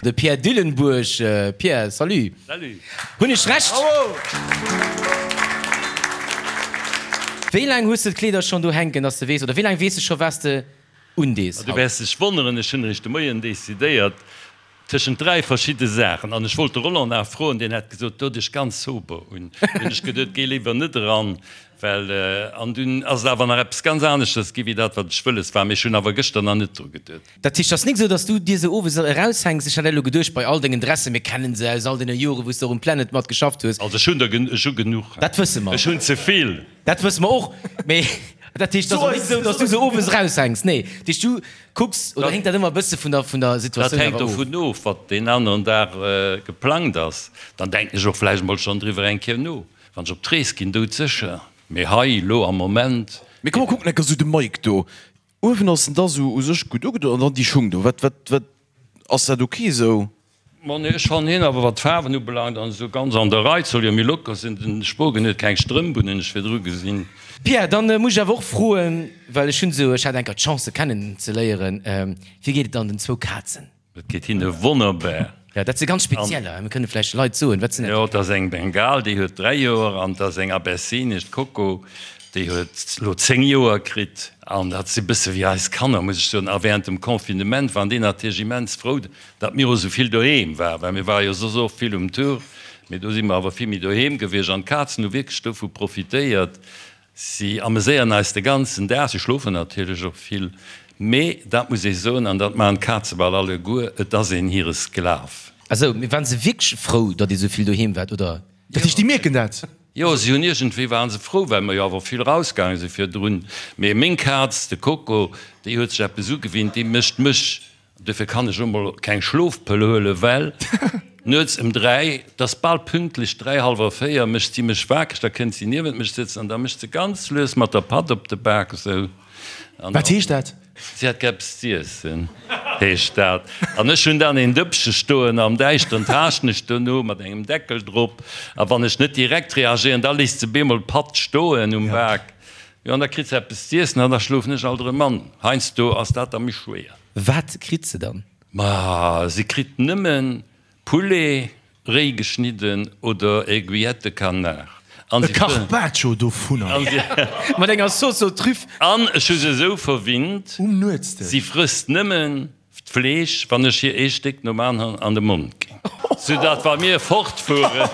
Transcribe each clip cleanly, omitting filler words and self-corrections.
De Pierre Dillenburg. Pierre, salut. Salut. Hunn ech Recht? Bravo! Wéi laang hues de d'Kleeder schonn do hänken, dass de weess, oder wéi laang weess de scho wat s de undees Du haut? wäers dech wonneren, ech hunn eréischt de Moien decidéiert tëschent 3 verschidde Saachen. An ech wollt de Roland nach froen, deen hätt gesot, do dech ganz sober un. Hunn ech geduet, géi léiwer net eran, well, an dunn ass et awer nach eppes ganz aneschters gi wéi dat wat ech wëlles war. Mee ech hunn awer gëschter nach net dru geduet. Dat heescht, et ass nik esou, dass du dir se owes eraushänks? Ech hat elo geduecht, bei all dengen Dressen, mir kennen se aus all deene Joren, wou s de och um Planet mat geschafft hues. Also ech hunn der, ech hu genuch. Dat wësse mer. Ech hunn ze vill. Dat wësse mer och. Mee dat heescht, et ass och nik esou, dass du se owes eraushänks. Nee, dat heescht, du kucks, oder héngt dat ëmmer e bësse vun der, vun der Situatioun Dat hänkt awer of? dovun of, wat deen aneren Dag geplangt ass. Dann denken ech och vläicht emol schonn driwwer eng Kéier no. Wann ech op d'Rees ginn, doudsécher. Mee hei, elo am Moment. Mee komm, mer kucken enker esou de Mike do. Uewen ass en da sou u sech gutt ugedoen an dann déi Schung do, wat, wat, wat, ass dat ok sou? Ma nee, ech fannen hien awer wat d'Faarwen ubelaangt an esou ganz an der Rei. Et soll jo méi locker sinn. Den Spogen huet keng Strëmp un, hunn ech virdru gesinn. Pierre, dann muss ech awer och froen, well ech hunn esou, ech hat enker d'Chance se kennen ze léieren, wéi geet et dann den zwou Kazen? Et geet hinne wonnerbar. Jo, dat si ganz spezieller. Mir kënne vläicht de Leit soen, wat sinn dat? Jo, et ass eng Bengal, déi huet 3 Joer, an et ass eng Abessinesch, d'Coco, déi huet elo 10 Joer kritt. An dat si bësse wéi eis Kanner, muss ech soen. A während dem Confinement waren déi natierlech immens frou, datt mir och esou vill doheem waren, well mir ware jo soss och vill um Tour, mee do si mer awer vill méi doheem gewiescht. An d'Kazen hu wierklech dovu profitéiert. Si ameséieren eis de ganzen Dag, si schlofen natierlech och vill, mee dat muss ee soen, an dat maachen d'Kaze bal alleguer, et ass een hire Sklav. Esou, mee waren se wierklech frou, datt Dir esou vill doheem waart, oder? Dat heescht, déi mierken dat? Jo, si hunn iergendwéi waren se frou, well mer jo awer vill rausgaange si virdrun. Mee meng Kaz, de Coco, déi huet sech eppes ugewinnt, déi mécht mech Dofir kann ech emol keng Schlofpëll huelen, well nuets ëm 3, 't ass bal pünktlech 3, hallwer 4, mécht si mech wakereg, da kënnt si niewent mech sëtzen an da mécht se ganz lues mat der Patt op de Bak esou. An Wat heescht dat? Si hätt gär eppes z'iessen, heescht dat. An ech hunn dann een Dëppche stoen am Däischteren, taaschten ech dono mat engem Deckel drop a wann ech net direkt reagéieren, da léisst se bemol d'Patt stoen um Bak. Jo, an da kritt se eppes z'iessen an da schlofen ech alt erëm an. Heiansdo ass dat da méi schwéier. Wat kritt se dann? Ma si kritt nëmmen Poulet, réi geschnidden, oder Aiguillette de canard. An E Carpaccio dovunner. Mat enger Sauce aux truffes. An ech hu se esou verwinnt, Um Nuetsdësch. si frësst nëmmen D'Fleesch, wann ech hir ee Stéck nom aneren an de Mond ginn, soudatt wa mir fortfueren.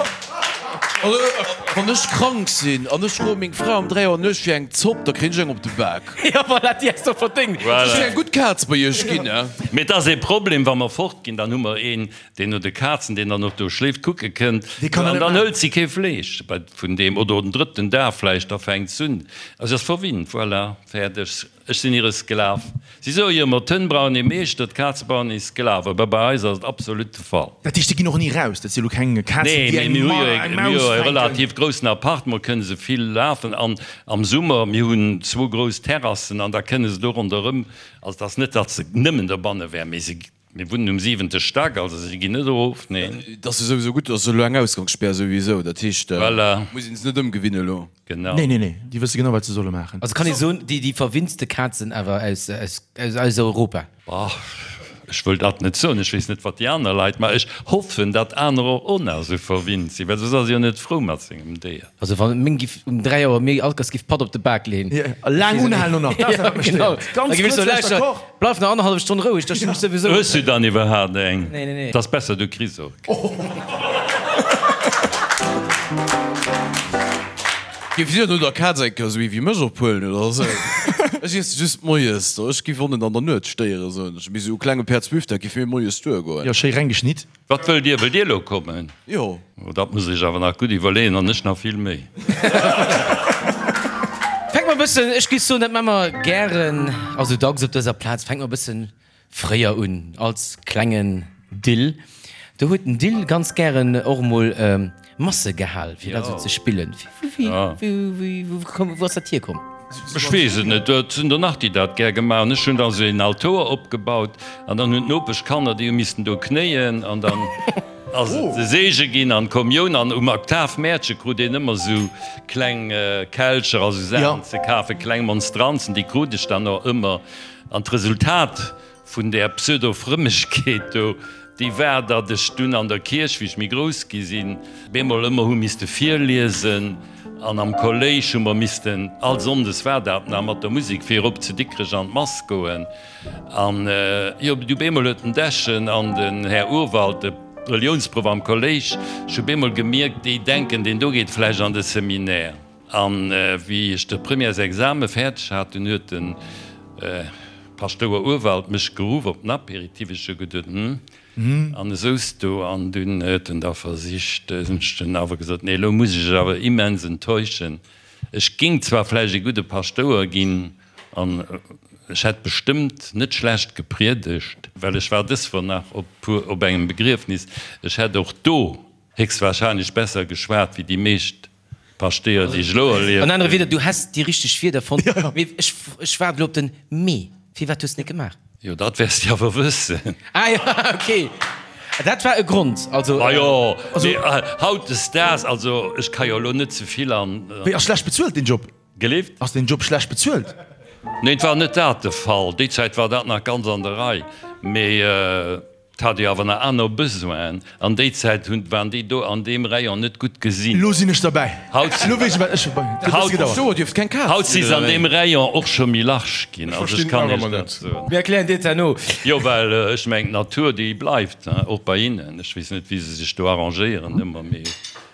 Wann ech krank sinn an ech froe meng Fra um 3 Auer nuechts fir eng Zopp, da kréien ech eng op de Bak. Jo, voilà, déi häss de och verdéngt. Ech sinn eng gutt Kaz bei iech ginn, ne? Mee et ass ee Problem, wa mer fortginn, dann hu mer een, deen no de Kazen, deen dann och do schléift, kucke kënnt. An dann hëlt si kee Fleesch vun deem. Oder den drëtten Dag vläicht, da fänkt s'un. Also si ass verwinnt, voilà, fäerdeg. Ech sinn hire Sklav. Si soe jo ëmmer, d'Hënn brauchen ee Meeschter, d'Kaze brauchen ee Sklav. Awer bei eis ass et absolut de Fall. Dat heescht, déi ginn och ni raus? Dat si elo keng Kazen, Nee, déi mee eng mir hu jo e, eng mir hu Maus jo e fänken? relativ groussen Appartement, kënne se vill lafen. An am Summer, mir hunn zwou grouss Terrassen an da kënne se do ronderëm. Also et ass net, datt se nëmmen dobanne wären, mee se Mir wunnen um siwente Stack, also si ginn net erof, neen. Et ass jo souwisou gutt, dass elo eng Ausgangsspär souwisou, dat heescht, Voilà. muss een se net ëmgewinnen elo. Genau. Nee, nee, nee, déi wësse genau, wat se solle maachen. Also kann ee soen, déi déi verwinntste Kazen awer aus aus aus Europa. Bah, ech wëll dat net soen, ech weess net, wat déi aner Leit, mä ech hoffen, datt anerer och nach esou verwinnt sinn, well soss ass ee jo net frou mat sengem Déier. Also wann meng giff um 3 Auer mir Alkers giff Patt op de Bak leen. A laang unhalen och nach, dat ass dat wat mech stéiert. Ganz kuerz vläicht d'accord. Bleif nach annerhallef Stonn roueg, da stinn ech souwisou. Hues du dann iwwerhaapt eng? Nee, nee, nee. Et ass besser du kriss och keng. Giff dir no der Kaz eng Kéier esou ee wéi mech ophuelen oder esou? Ech iesse just moies, ech giff och net an der Nuet stéieren, soen ech. Mee esou e klenge Päerdsbifdeck giff mir moies duergoen. Jo, schéi reng geschnitt. Wat wëllt Dir? Wëllt Dir elo kommen? Jo. Oh, dat muss ech awer nach gutt iwwerleeën, an ech nach vill méi. Fänke mer e bëssen, ech géif soen, dat maache mer gären a sou dacks op dëser Plaz, fänke mer e bëssen fréier un, als klengen Dill. Do huet den Dill ganz gären och emol Masse gehal, fir dat esou ze spillen. Wou ass dat hierkomm? Ech weess et net. Et sinn der nach, déi dat gär gemaach hunn. Ech hunn da sou een Altoer opgebaut an dann hunn d'Nopeschkanner, déi hu missten do knéien an dann ass et de Seege ginn an d'Kommioun. An um Oktavmäertche krut een ëmmer sou kleng Kelcher a sou Saachen ze kafen, kleng Monstranzen, déi krut ech dann och ëmmer. An d'Resultat vun där Pseudo-Frëmmegkeet do. Déi war, datt ech dunn an der Kierch, wéi ech méi grouss gi sinn, bemol ëmmer hu misste virliesen an am Kolléisch hu mer missten, all Sonndes war dat nach, mat der Musek virop zu Dikrech an d'Mass goen. An jo, du bemol huet den Dechen an den Här Urwald, de Reliounsproff am Kolléisch, ech hu bemol gemierkt, déi denken, deen do geet vläicht an de Seminaire. An wéi ech de Premièresexame fäerdeg hat, dunn huet de Paschtouer Urwald mech geruff op den Apéritif. Ech hu geduet, Hm, an e souz do. An dunn huet en da versicht, hunn ech dunn awer gesot, Nee, elo muss ech iech awer immens enttäuschen. Ech géing zwar vläicht e gudde Paschtouer ginn an ech hätt bestëmmt net schlecht gepriedegt, well ech war dës Woch nach op engem Begriefnis, ech hätt och do héchstwahrscheinlech besser geschwat wéi déi meescht Paschtéier, déi ech elo erlieft An anere Wieder, du häss déi richteg Wierder fonnt, mee ech, ech waarde elo op den mee. Firwat hues de net gemaach? Jo, dat wäers de awer wëssen. Ah jo, ok. Dat war e Grond, also. Ma jo, mee hautdesdaags, also ech ka jo elo net ze vill an. Wéi, ass schlecht bezuelt deen Job? Gelift? Ass deen Job schlecht bezuelt? Neen, et war net dat de Fall. Déi Zäit war dat nach ganz an der Rei, mee. 't hat jo awer nach aner Besoinen. An déi Zäit hunn, waren déi do an deem Rayon net gutt gesinn. Elo sinn ech derbäi. Haut, Elo weess ech, wat ech. Et huet e bësse gedauert. Paschtouer dierft keng Kaz haut si sinn, se oder an wéi? deem Rayon och scho méi large ginn. Ech Also ech verstinn kann nach Iech ëmmer dat net. soen. Mir erklären dir et herno. Jo, well ech mengen, d'Natur, déi bleift, hein, och bei hinnen. Ech weess net, wéi se sech do arrangéieren ëmmer, mee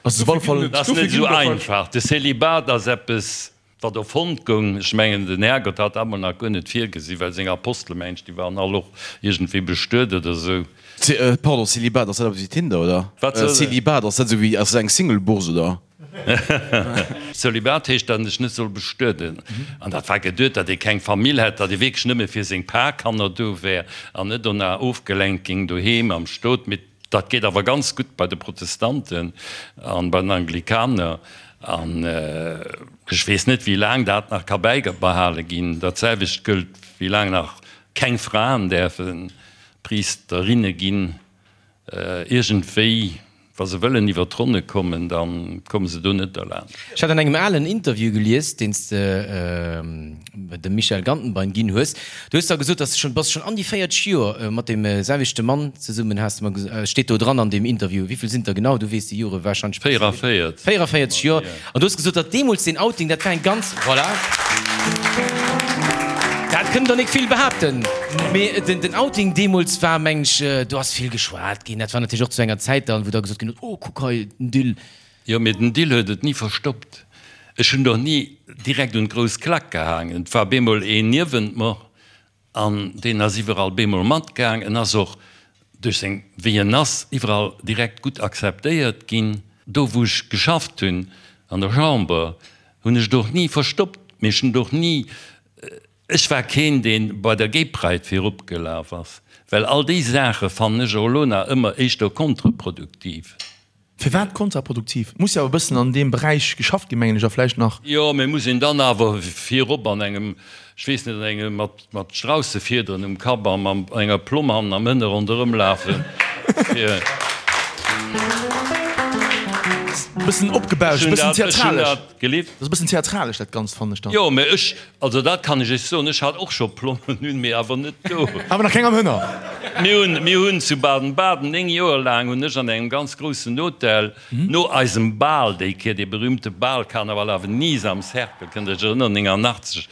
Ass op alle Fall. et ass net esou einfach. De Célibat ass eppes. Wat erfonnt goung, ech mengen, den Härgott hat dat mol nach guer net virgesi, well seng Apostelen, mengen ech, déi waren all och iergendwéi bestuet oder esou. Pardon, Célibat, ass dat eppes wéi Tinder, oder? Wat soll dat? Célibat, ass dat esou wéi, ass dat eng Single-Bourse, oder? Célibat heescht, datt een sech net soll bestueden. An dat war geduet, datt ee keng Famill hätt, datt ee wierklech nëmme fir seng paar Kanner do wär an net dona ofgelenkt géing doheem am Stot. Mee Dat geet awer ganz gutt bei de Protestanten an bei den Anglikaner. An ech weess net, wéi laang dat nach ka bäibehale ginn. Dat selwecht gëllt, wéi laang nach keng Fraen däerfe Priesterinne ginn. Iergendwéi, wa se wëllen iwwer d'Ronne kommen, da komme se do net derlaanscht. Ech hat an engem alen Interview gelies, deen s de dem Michel Gantenbein ginn hues, du hues da gesot, dass de schonn, bass schonn an déi 40 Joer mat deem selwechte Mann zesummen, has de mer gesot, steet do dran an deem Interview. Wéi vill sinn et der genau? Du weess déi Jore warscheinlech besser wéi ech. 44. 44 Joer. An du hues gesot, datt deemools deen Outing, dat war eng ganz, voilà, dat kënnen der nik vill behaapten, mee den Outing deemools war, meng ech, do ass vill geschwat ginn. Dat war natierlech och zu enger Zäit dann, wou da gesot ginn huet, oh kuck hei, den Dill. Jo, mee den Dill huet et ni verstoppt. Ech hunn och ni direkt un d'grouss Klack gehaangen. Et war bemol een niewent mer an deen ass iwwerall bemol matgaang. En ass och duerch seng, wéi en ass, iwwerall direkt gutt akzeptéiert ginn. Do wou ech geschafft hunn, an der Chamber, hunn ech et och ni verstoppt. Mee ech hunn et och ni, ech war keen, dee bei der Gay Pride virop gelaf ass, well all déi Saache fannen ech och elo nach ëmmer éischter kontreproduktiv. Firwat kontraproduktiv? Et muss jo awer e bëssen an deem Beräich geschafft ginn, mengen ech, a vläicht nach. Jo, mee muss een dann awer virop an engem, ech weess net, an engem mat mat Straussefiederen um Kapp a mam enger Plomm hannen am Hënne ronderëm lafen, fir. E bëssen opgebauscht, e bëssen theatralesch. Gelift? Dat ass e bëssen theatralesch, dat Ganzt, fannen ech dann. Jo, mee ech, also dat kann ech Iech soen, ech hat och scho Plommen un, mee awer net do. Awer nach keng am Hënner. Mir hunn, mir hunn zu Baden-Baden, 9 Joer laang hunn ech an engem ganz groussen Hotel, no eisem Bal déi Kéier, dee berühmte Bal Carnaval à Venise am Cercle, kënnt Der Iech erënneren, 89,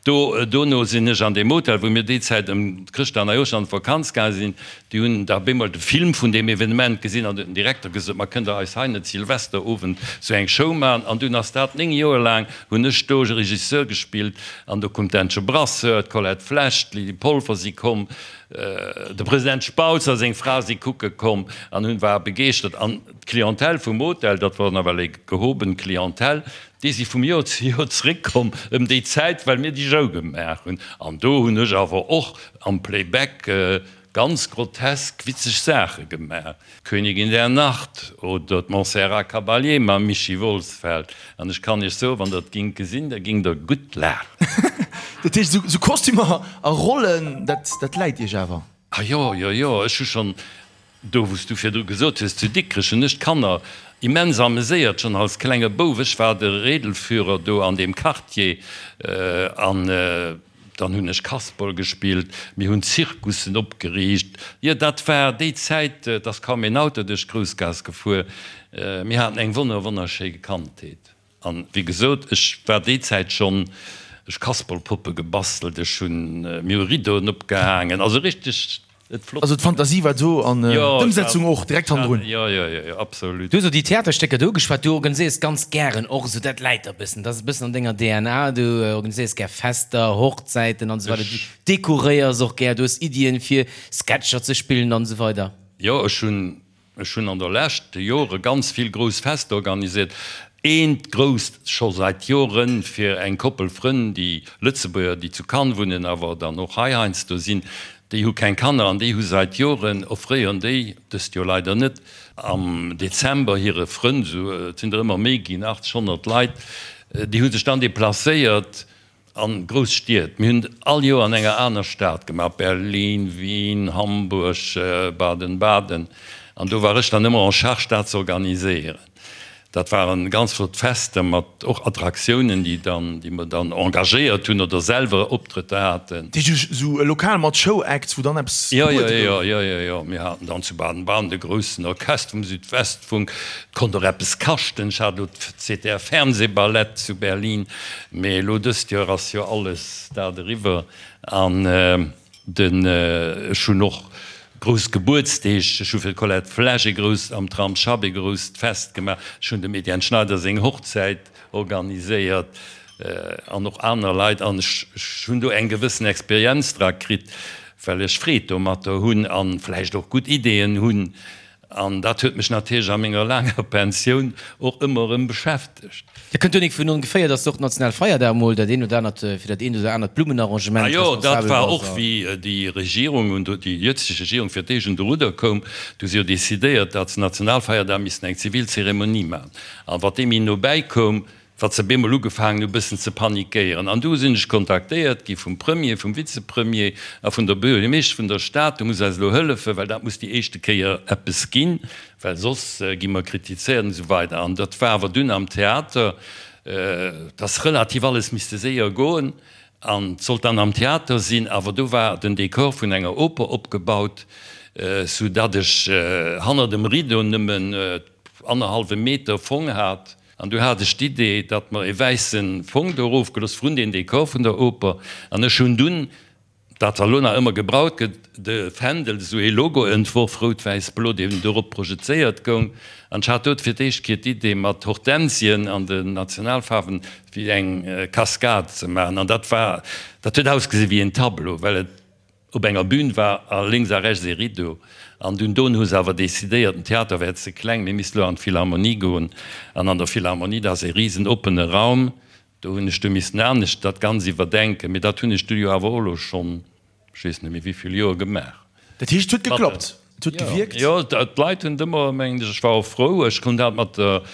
do, dono sinn ech an deem Hotel, wou mir déi Zäit ëm Chrëschtdag, Neijoersch an d'Vakanz gaange sinn, Déi hunn da bemol de Film vun deem Evenement gesinn an huet den Direkter gesot, Ma kënnt der eis hei net Silvesterowend sou eng Show maachen? An dunn ass dat, 9 Joer laang hunn ech do Regisseur gespillt an do koum d'Äntche Brasseur, d'Colette Flesch, d'Lydie Polfer si komm, de President Spautz a seng Fra si kucke komm an hunn, ware begeeschtert. An d'Clientèle vum Hotel, dat war nawell eng gehoben Clientèle, déi si vum Joer zu Joer zréckkomm ëm déi Zäit, well mir déi Show gemaach hunn. An do hunn ech awer och am Playback Ganz grotesk witzeg Saache gemaach, D'Königin der Nacht oder d'Montserrat Caballé mam Michi Wolsfeld. An ech kann iech soen, wann der et gingt gesinn, da gingt der gutt laachen. Dat heescht, esou Kostümer a Rollen, dat läit iech awer? Ah jo, jo, jo, ech hu schonn, do wou s du virdru gesot hues, zu Dikrech hunn ech d'Kanner immens ameséiert, schonn als klenge Bouf. Ech war de Rädelführer do an deem Quartier an. Dann hunn ech Kasperl gespillt, mir hunn Zirkussen opgeriicht. Jo, dat war déi Zäit, et ass kaum een Auto duerch d'Groussgaass gefuer. Mir haten eng wonner, wonnerschéi Kandheet. An wéi gesot, ech war déi Zäit schonn, ech Kasperlpoppe gebastelt, ech hunn, mir hu Rideauen opgehaangen, also richteg et flott. Also d'Fantasie war do an d'Ëmsetzung och direkt hannendrun. Jo, jo, jo, jo, absolut. Du hues elo déi Theaterstécker do ugeschwat, du organiséiers ganz gären och esou, dat läit der e bëssen, dat ass e bëssen an denger DNA, du organiséiers gär Fester, Hochzäiten an esou weider, du dekoréiers och gär, du hues Iddien fir Sketcher ze spillen an esou weider. Jo, ech hunn Ech hunn an der leschte Jore ganz vill grouss Fester organisiert. Eent grousst scho seit Joren fir eng Koppel Frënn, déi Lëtzebuerger, déi zu Cannes wunnen, awer dann och hei heiansdo sinn. Déi hu keng Kanner an déi hu seit Joren, offréieren déi, dëst Joer leider net, am Dezember hire Frënn, esou et sinn der ëmmer méi ginn, 80, 100 Leit, déi hu sech dann deplacéiert An grouss Stied. Mir hunn et all Joer an enger aner Stad gemaach, Berlin, Wien, Hamburg, Baden-Baden. An do war ech dann ëmmer en charge dat ze organiséieren. Dat waren ganz flott Fester mat och Attraktiounen, déi dann, déi mer dann engagéiert hunn oder selwer Optrëtter haten. Dat heescht esou e Lokal mat Show-Acts, wou dann eppes gebuede gouf? Jo, jo, jo, jo, jo. Mir haten dann zu Baden-Baden de groussen Orchester vum Südwestfunk. Et konnt och eppes kaschten. Ech hat elo d'ZDF-Fernsehballett zu Berlin. Mee elo dëst Joer ass jo alles dat eriwwer an den, ech hunn och grouss Gebuertsdeeg, ech hu fir d'Colette Flesch ee grousst, am Tram Schapp ee grousst Fest gemaach, ech hunn dem Etienne Schneider seng Hochzäit organiséiert an och aner Leit an ech hunn do eng gewëssen Experienz dra kritt, well ech Freed domatter hunn an vläicht och gutt Ideeën hunn. An dat huet mech natierlech a menger laanger Pensioun och ëmmer erëm beschäftegt. Dat kënnt jo nik vun ongeféier, dass de och Nationalfeierdag mol dat eent oder anert, fir dat eent oder anert Blummenarrangement Ah jo, dat responsabel war bass. och wéi déi Regierung un déi jëtzeg Regierung fir d'éischt un de Rudder koum, du hu se jo decidéiert, datt se Nationalfeierdag missten eng zivil Zeremonie maachen. An wat deem méi no bäi koum, Wat se bemol ugefaangen hu bëssen ze panikéieren. An du sinn ech kontaktéiert gi vum Premier, vum Vizepremier a vun der Buergermeeschtesch vun der Stad, du muss eis elo hëllefen, well dat muss déi éischte Kéier eppes ginn, well soss gi mer kritizéiert an esou weider. An dat war awer dunn am Theater, et ass relativ alles misste séier goen an et sollt dann am Theater sinn, awer do war den Dekor vun enger Oper opgebaut, sou datt ech hanner dem Rideau nëmmen annerhallwe Meter Fong hat. An du hat ech d'Idee, datt mer e wäisse Fong do erofgelooss vrun deen Dekor vun der Oper. An ech hunn dunn, dat wat elo nach ëmmer gebraut gëtt, de Fändel, esou ee Logo entworf, rout-wäiss-blo, deen dorop projezéiert goung. An ech hat do fir d'éischt Kéier d'Idee, mat Hortensien an den Nationalfaarwen wéi eng Cascade ze maachen. An dat war, dat huet ausgesi wéi een Tableau, well et Op enger Bühn war a lénks a rechts ee Rideau. An dunn dono hu se awer decidéiert, den Theater wär ze kleng, mir misste lo an d'Philharmonie goen. An an der Philharmonie, dat ass ee risen oppene Raum, do hunn ech du missen anescht dat Ganz iwwerdenken. Mee dat hunn ech du jo awer och elo schonn, ech weess net méi wéivill Joer, gemaach. Dat heescht, et huet geklappt? Et huet gewierkt? Jo, d'Leit hunn et ëmmer, mengen ech, ech war och frou, ech hunn dat mat der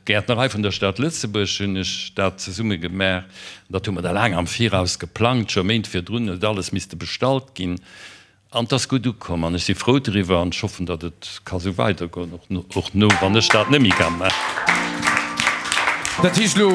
Gäertnerei vun der Stad Lëtzebuerg hunn ech dat zesumme gemaach. Dat hu mer da laang am Viraus geplangt, scho Méint virdrun huet alles misste bestallt ginn. An et ass gutt ukomm an ech si frou driwwer an ech hoffen, datt et ka sou weidergoen, och no wann ech dat net méi ka maachen. Dat heescht elo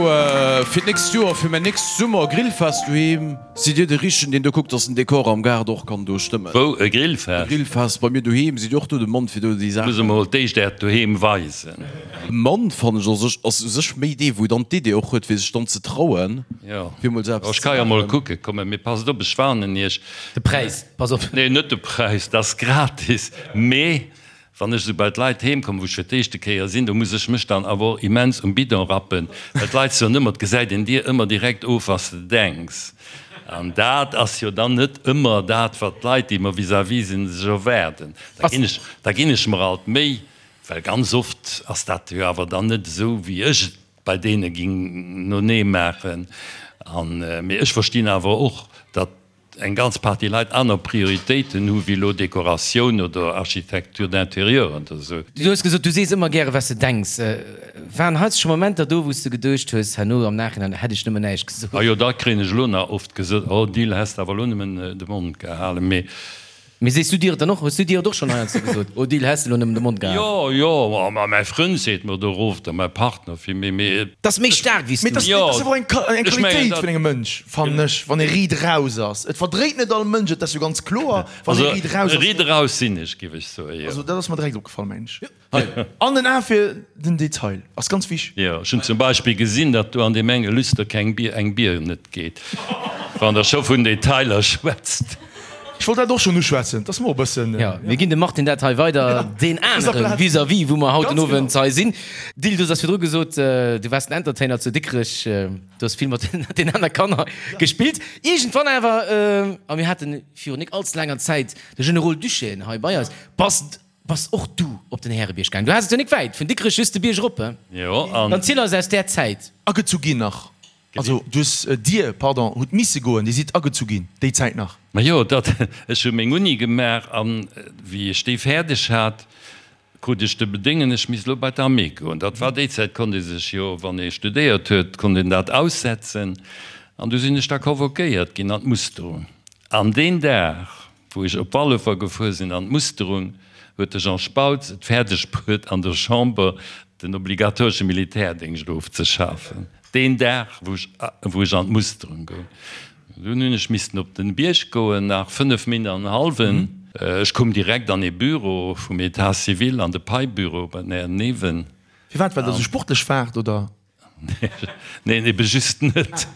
fir d'nächst Joer, fir mäin nächst Summer-Grillfest doheem, Sidd Dir de Richtegen, deen do kuckt, dass den Dekor am Gaart och kann do stëmmen? Wou? E Grillfest? E Grillfest bei mir doheem. Sidd Dir och do de Mann fir do déi Saachen? Muss emol d'éischt Äert Doheem weisen. E Mann, fannen ech, ass u sech, ass u sech méi dee wou dann d'Idee och huet fir sech dann ze trauen, fir emol esou eppes ze maachen. Ech ka jo emol kucke kommen, mee passt op, ech warnen Iech. De Präis, pass op. Nee, net de Präis, dat ass gratis, mee Wann ech esou bei d'Leit heem kommen, wou ech fir d'éischte Kéier sinn, do muss ech mech dann awer och immens um Bidon rappen, well d'Leit soen ëmmer, et gesäit een dir ëmmer direkt of, was de denks. An dat ass jo dann net ëmmer dat, wat d'Leit, déi mer vis-à-vis sinn, sech erwaarden. Da ginn ech, da ginn ech mer alt Méi, well ganz oft ass dat jo awer dann net esou, wéi ech et bei deene ging nonee maachen. An, mee ech verstinn awer och, datt eng ganz Partie Leit aner Prioritéiten hu wéi elo Dekoratioun oder Architecture d'intérieur oder esou. Du hues gesot, du sees ëmmer gäre wat s de denks. Waren heiansdo scho Momenter do, wou s de geduecht hues, herno am Nachhinein, hätt ech nëmmen näischt gesot? A jo, dat kréien ech elo nach oft gesot, oh Dil, häss de awer elo nëmmen de Mond gehalen. Mee. Mee sees du dir et dann och? Hues du dir et och schonn heiansdo gesot, Odile, häss de lo nëmmen de Mond gehalen? Jo, jo, ma mäi Frënd seet mer do erof, da mäi Partner villméi, mee. 't ass méi staark wéi s du. Mee 't ass awer eng Qualitéit vun engem Mënsch, fannen ech, wann ee riit eraus ass. Et verdréit net all Mënsch et, dat ass jo ganz kloer, wann ee riit eraus ass. Also riit eraus sinn ech, giff ech soen, jo. Also dat ass mer direkt opgefall, mengen ech. An den A fir den Detail ass ganz wich. Jo, ech hunn zum Beispill gesinn, datt do an deem enge Lüster keng Bier, eng Bier net geet, wann Der scho vun Detailer schwätzt. Ech wollt dat och schonn uschwätzen, 't ass mer och e bëssen. Jo, mir ginn dem Martin dat hei weider, deen anere vis-à-vis, wou mer haut den Owend hei sinn. Dil, du has virdru gesot, du waars den Entertainer zu Dikrech, du has vill mat den aner Kanner gespillt. Iergendwann awer, a mir hate virun nik allze laanger Zäit de Generol Duchesne hei bei eis, bass Bass och du op den Härebierg gaang? Du has et jo nik wäit vun Dikrech, just de Bierg erop, he? Jo, an. Dann ziel eis aus där Zäit. Agezu ginn nach. Also du hues, dir, pardon, hutt misse goen, dir sidd agezu ginn déi Zäit nach. Majo, dat, ech hu meng Uni gemaach an wéi ech déi fäerdeg hat, krut ech de Bedéngen, ech misst elo bei d'Armée goen. Dat war déi Zäit, konnt ee sech jo, wann ee studéiert huet, konnt een dat aussetzen. An du sinn ech da convoquéiert ginn an d'Musterung. An deen Dag, Wou ech op Wallefer gefuer sinn an d'Musterung, huet de Jean Spautz et fäerdeg bruet an der Chamber den obligatoresche Militärdéngscht ofzeschafen, deen Dag wou ech wou ech an d'Musterung goung. Dunn hunn ech missten op den Bierg goen, nach 5 Min an en hallwen. Ech koum direkt an ee Büro vum Etat civil, an de Paibüro bei den Här Neven. Firwat? Well der esou sportlech waart, oder? Neen, ebe just net.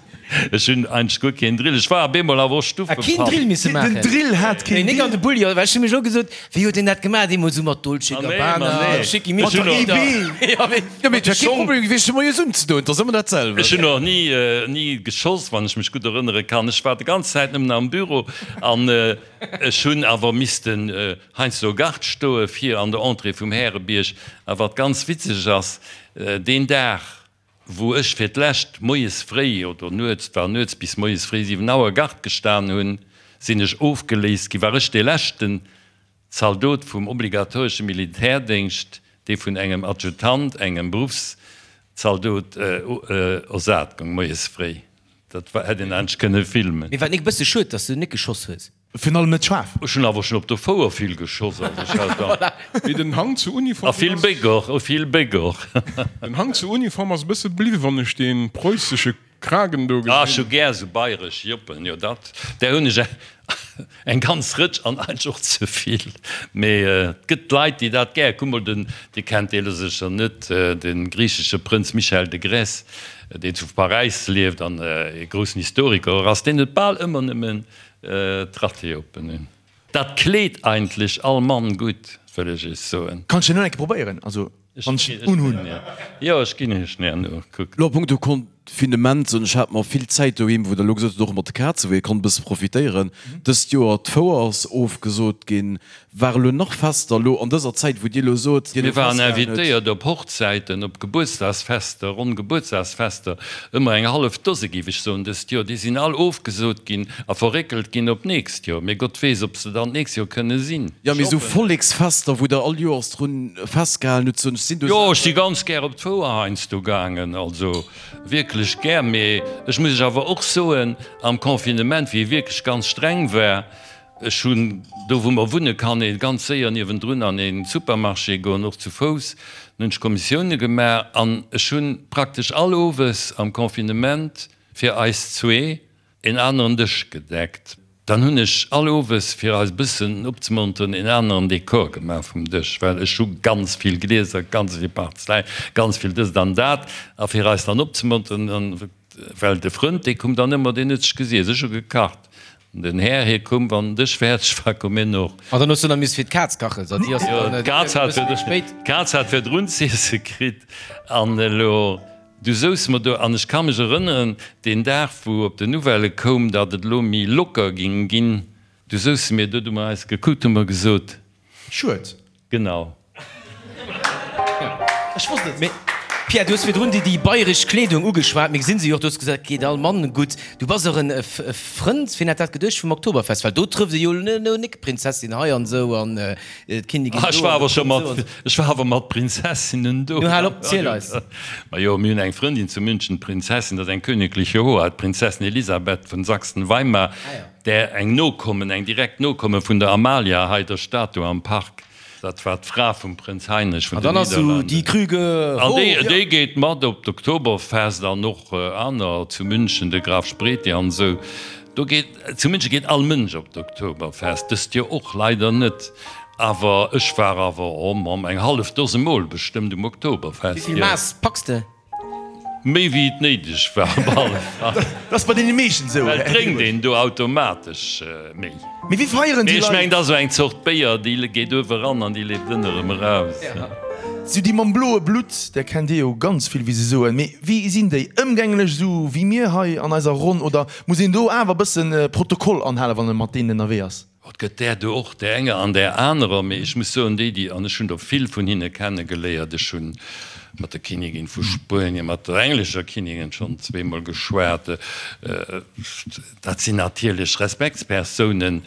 Ech hunn eigentlech guer keen Drill. Ech war op eemol awer och Ah, keen Stuffepapp. Drill misse Den maachen? Drill hat keen Nee, nik an Drill. de Bulli, well ech hu mech elo gesot, wéi huet deen dat gemaach, deemools esou mat Dolce Ah, nee, ma Gabbana, nee. Schickimicki Ech hunn och. oder Ja, mee Jo, mee et mat de wär kee Schong. Problem gewiescht, fir moies unzedoen. Et ass ëmmer dat selwecht. Ech hunn och ni, ni geschoss, wann ech mech gutt erënnere kann. Ech war de ganz Zäit nëmmen am Büro an ech hunn awer missten heiansdo Gard stoe fir an der Entrée vum Härebierg. A wat ganz witzeg ass, Deen Dag, wou ech fir d'lescht moies fréi, oder nuets, et war nuets, bis moies fréi 7 Auer Gard gestan hunn, sinn ech ofgeléist ginn, war ech dee leschten Zaldot vum obligatoresche Militärdéngscht, dee vun engem Adjutant, engem Beruffszaldot, ersat goung, moies fréi. Dat hätt een eigentlech kënne filmen. Mee war et nik e bësse schued, dass du nik geschoss hues? Virun allem net schaarf. Ech hunn awer schon op der Fouer vill geschoss, also ech hat da. Mee den Hang zu Uniform A vill Béck och, a vill Béck och. Den Hang zu Uniform ass e bësse bliwwen, wann ech dee preussesche Kragen do Ah, ech hu gesinn. gär esou bayresch Joppen, jo dat, där hunn ech eng ganz Rëtsch an eigentlech och ze vill. Mee et gëtt Leit, déi dat gär, kuck mol den, Dir kennt dee lo sécher net, de griichesche Prënz Michael de Grèce, deen zu Paräis lieft an e groussen Historiker och ass, deen huet bal ëmmer nëmmen D'Rateopen hunn. Dat kleet eigentlech all Mann gutt, wëll ech iech soen. Kann ech den och eng Kéier probéieren? Also wann ech en unhunn. Jo, ech ginn iech en herno. Kuckt. Lo a punkto Confinement, soen ech, hate mer vill Zäit doheem, wou Der elo gesot hutt, och mat de Kazen, wou ee konnt e bësse profitéieren. Dëst Joer, d'Fouer ass ofgesot ginn. Ware lo nach Fester elo an dëser Zäit, wou Dir elo sot, Dir Mir elo waren festgehalen hutt? invitéiert op Hochzäiten, op Gebuertsdagsfester, ronn Gebuertsdagsfester, ëmmer eng hallef Dose géif ech soen dëst Joer. Déi sinn all ofgesot ginn a verréckelt ginn op d'nächst Joer. Mee Gott weess, ob se dann d'nächst Joer kënne sinn. Jo, mee Ech esou hoffen et. Volleksfester, wou Der all Joers drun festgehalen hutt, soen ech, sinn do Jo, ech si Saachen. ganz gär op d'Fouer heiansdo gaangen, also wierklech gär. Mee ech muss lech awer och soen, am Confinement, wéi e wierklech ganz streng war, Ech hunn, do wou mer wunne kann ee ganz séier niewendrun an ee Supermarché goen, och zu Fouss, dann hunn ech Kommissioune gemaach an ech hu praktesch all Owes am Confinement fir eis zwee een aneren Dësch gedeckt. Dann hunn ech all Owes, fir eis e bëssen opzemonteren, een aneren Dekor gemaach vum Dësch, well ech hu ganz vill Glieser, ganz vill Parzeläin, ganz vill dëst an dat a fir eis dann opzemonteren, dann, well de Frënd dee koum dann ëmmer, deen huet sech gesiess, ech hu gekacht. Den Här hie koum, wann den Dësch fäerdeg war, koum hien och. An dann hues du nach missen fir d'Kaz kachen, so déi ass Jo, dann d'Kaz e hat bësse méi spéit. d'Kaz hat virdrun z'iesse kritt. An elo, du souz mer do, an ech ka mech erënneren, deen Dag, wou op den Nouvellë koum, datt et elo méi locker ging ginn, du souze mir do, du hu mer eis gekuckt, hu mer gesot. Schued. Genau. Ech wosst et. Mee. Pierre, du hues virdrun déi déi bayresch Kleedung ugeschwat. Mir gesinn se jo och, du hues gesot, et geet all Mann gutt. Du bass och en Frënd, wien hätt dat geduecht, vum Oktoberfest, well do trëfft ee jo elo nik Prinzessin hei an esou an d'Kinnigin do. Ech war awer scho mat, ech war awer mat Prinzessinnen do. Nu hal op, ziel eis. Majo, mir hunn eng Frëndin zu München, d'Prinzessin, dat ass eng königliche Hoheit, d'Prinzessin Elisabeth vun Sachsen-Weimar, där eng Nokommen, eng direkt Nokomme vun der Amalia hei, der Statue am Park. Dat war d'Fra vum Prënz Heinrich vun den Nidderlanden. An déi geet mat op d'Oktoberfest an och aner zu München, de Graf Spreti an esou. Do geet, zu München geet all Mënsch op d'Oktoberfest, dëst Joer och leider net. Awer ech war awer, oh Mamm, eng hallef Dose Mol bestëmmt um Oktoberfest. Wéi vill Mass packs de? Méi wéi et néideg war op alle Fall. Dat ass bei deene meeschten esou. Well et drénkt een do automatesch méi. Mee wéi feieren déi Leit? Ech mengen, dat ass esou eng Zort Béier, déi geet uewe ran an déi leeft ënne erëm eraus. Sou déi mam bloe Blutt, där kennt Dir jo ganz vill, wéi se soen. Mee wéi sinn déi? Ëmgänglech esou wéi mir hei an eiser Ronn oder muss een do awer e bëssen Protokoll anhalen, wann e mat deenen ënnerwee ass? Et gëtt där do och, där enger an där anerer, mee ech muss soen, déi, déi, an ech hunn der vill vun hinne kenne geléiert, ech hu mat der Kinnigin vu Spuenien, mat der englescher Kinnigin schonn zweemol geschwat, dat sinn natierlech Respektspersounen.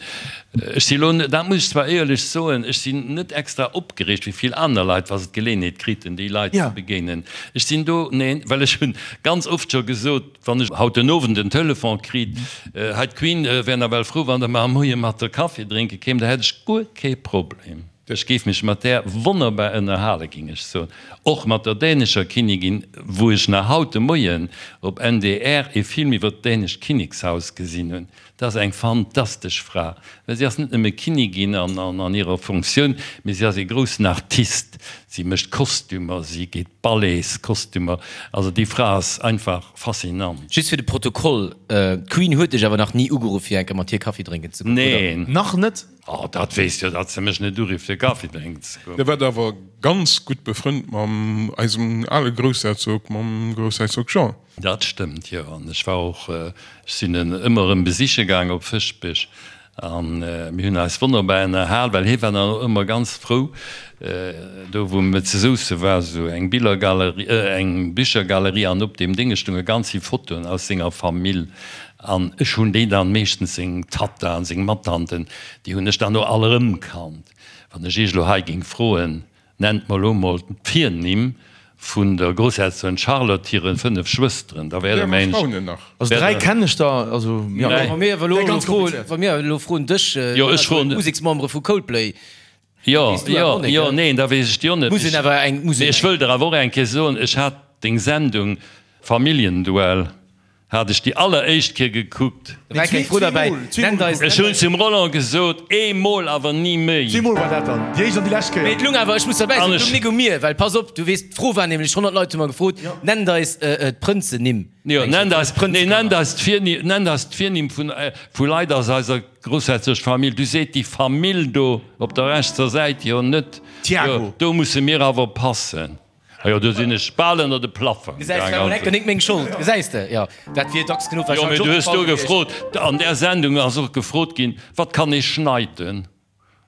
Ech si elo, dat muss ech zwar éierlech soen, ech sinn net extra opgereegt wéi vill aner Leit, wa se d'Geleeënheet kriten, déi Leit ze begéinen. Ech sinn do, neen, well ech hunn ganz oft scho gesot, Wann ech haut den Owend en Telefon kriit, hei d'Queen wär nawell frou wann der mar am Moie mat der Kaffi drénke kéim, da hätt ech guer kee Problem. Ech géif mech mat där wonnerbar ënnerhale géing ech soen. Och mat der dänescher Kinnigin, wou ech nach haut de Moien op NDR ee Film iwwer d'dänescht Kinnekshaus gesinn hunn. Dat ass eng fantastesch Fra, well si ass net nëmme Kinnigin an hirer Funktioun, mee si ass ee groussen Artist. Si mécht Kostümer, si geet Ballets-Kostümer. Also déi Fra ass einfach faszinant. Just fir de Protokoll, D'Queen huet dech awer nach ni ugeruff fir eng Kéier mat hir Kaffi drénken ze goen, oder? Neen. Nach net? Oh, dat weess jo, datt se mech net urifft fir Kaffi drénken ze goen. Dir waart awer ganz gutt befrënnt mam eisem ale Groussherzog, mam Groussherzog Jean. Dat stëmmt, jo. An ech war och, ech sinn en ëmmer erëm besiche gaang op Fëschbech an mir hunn eis wonnerbar ënnerhal, well hie war dann och ëmmer ganz frou, do wou mir zu Sousse war esou eng Billergalerie, eng Bichergalerie an op deem Dénge stounge ganz vill Fotoen aus senger Famill an ech hunn déi dann meeschtens, seng Tatta an seng Mattanten, déi hunn ech dann och all erëmkannt. Wann ech iech elo hei géing froen, Nennt mer elo mol d'Virnimm vun der Groussherzogin Charlotte hire 5 Schwësteren, da wäert der mengen ech. Also 3 kennen ech der, also jo. Wa mir awer elo froen, wa mir elo froen dech, Jo, ech froen. Museksmembere vu Coldplay, Jo, weess du awer och net, jo, neen, da weess ech déi och net. Muss een awer eng, muss een. Mee ech wëll der awer och eng Kéier soen, ech hat deng Sendung Familljenduell Hat ech déi alleréischt Kéier gekuckt. Da war keng Fro derbäi. Nennt eis. Ech hunn zum Roland gesot, eemol awer ni méi. Zweemol war dat dann, déi éischt an déi lescht Kéier. Mee et lung awer, ech muss derbäi soen, et lung nik u mir, well pass op, du weess, d'Fro war nämlech, 100 Leit hu mer gefrot, nennt eis d'Prënzennimm. Jo, nennt eis, nee, nennt eis d'Virnimm, nennt eis d'Virnimm vun, vu Leit aus eiser groussherzoglecher Famill. Du seet déi Famill do op der rechtser Säit jo net. Thiago. Jo, do musse mir awer passen. Ah jo, do sinn ech bal ënner de Plaffong Gesäis, war mol enker nik meng Schold, gesäis de? Jo, dat wier dacks genuch Jo, mee wahrscheinlech du hues do opgefall gewiescht. gefrot, an där Sendung ass och gefrot ginn, Wat kann ee schneiden?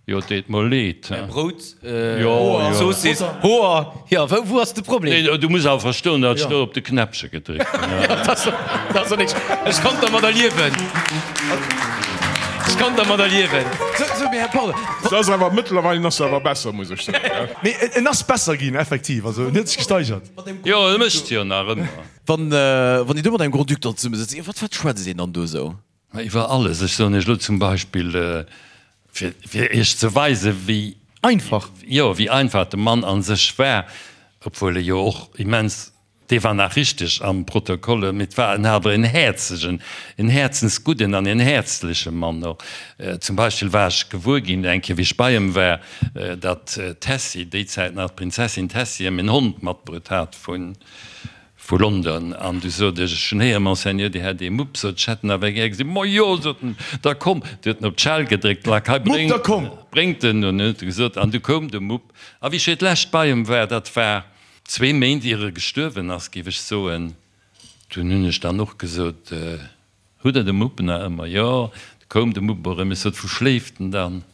Jo, et deet mer leed, he. Brout, Jo, jo. Zoossiss, Hoer, jo, wou, wou ass de Problem? Nee, du muss awer verstoen, datt ech do op de Knäppche gedréckt hunn, he. Jo, dat ass, dat ass och nik, ech konnt dermadder liewen. Ech konnt dermadder liewen. Sou, sou, mee Här Paul. Se ass awer, mëttlerweilen ass se awer besser, muss ech soen, he. Mee en ass besser ginn, effektiv. Also en huet sech gesteigert. Jo, e mécht jo nach ëmmer. Wann wann Dir do mat engem Grand-Duc dann zesumme sëtzt, iwwer wat schwätzt een dann do esou? Ma iwwer alles. Ech soen Iech elo zum Beispill, fir fir Iech ze weisen, wéi. Einfach. Jo, wéi einfach de Mann a sech war, obwuel e jo och immens Dee war nach richteg am Protokoll, mee et war en awer en häerzegen, en häerzensgudden an en häerzleche Mann och. Zum Beispill war ech gewuer ginn, eng Kéier wéi ech bei em war, datt d'Tessy, déi Zäit nach d'Prinzessin Tessy, em en Hond matbruet hat vu London. An du sot ech, ech hunn héieren, Monseigneur, Dir hätt ee Mupp, sot ech, hätt en awer gär gesinn. Majo, sot en, da komm. Du huet en op d'Schell gedréckt, Lack, hei, Mupp, da komm! Bréngt en. An huet e gesot, an du koum de Mupp. A wéi ech fir d'lescht bei em war, dat war Zwee Méint ier e gestuerwen ass, géif ech soen, dunn hunn ech dann och gesot, Hutt Der de Mupp nach ëmmer? Jo, du koum de Mupp erëm. Ech sot, Wou schléift en dann?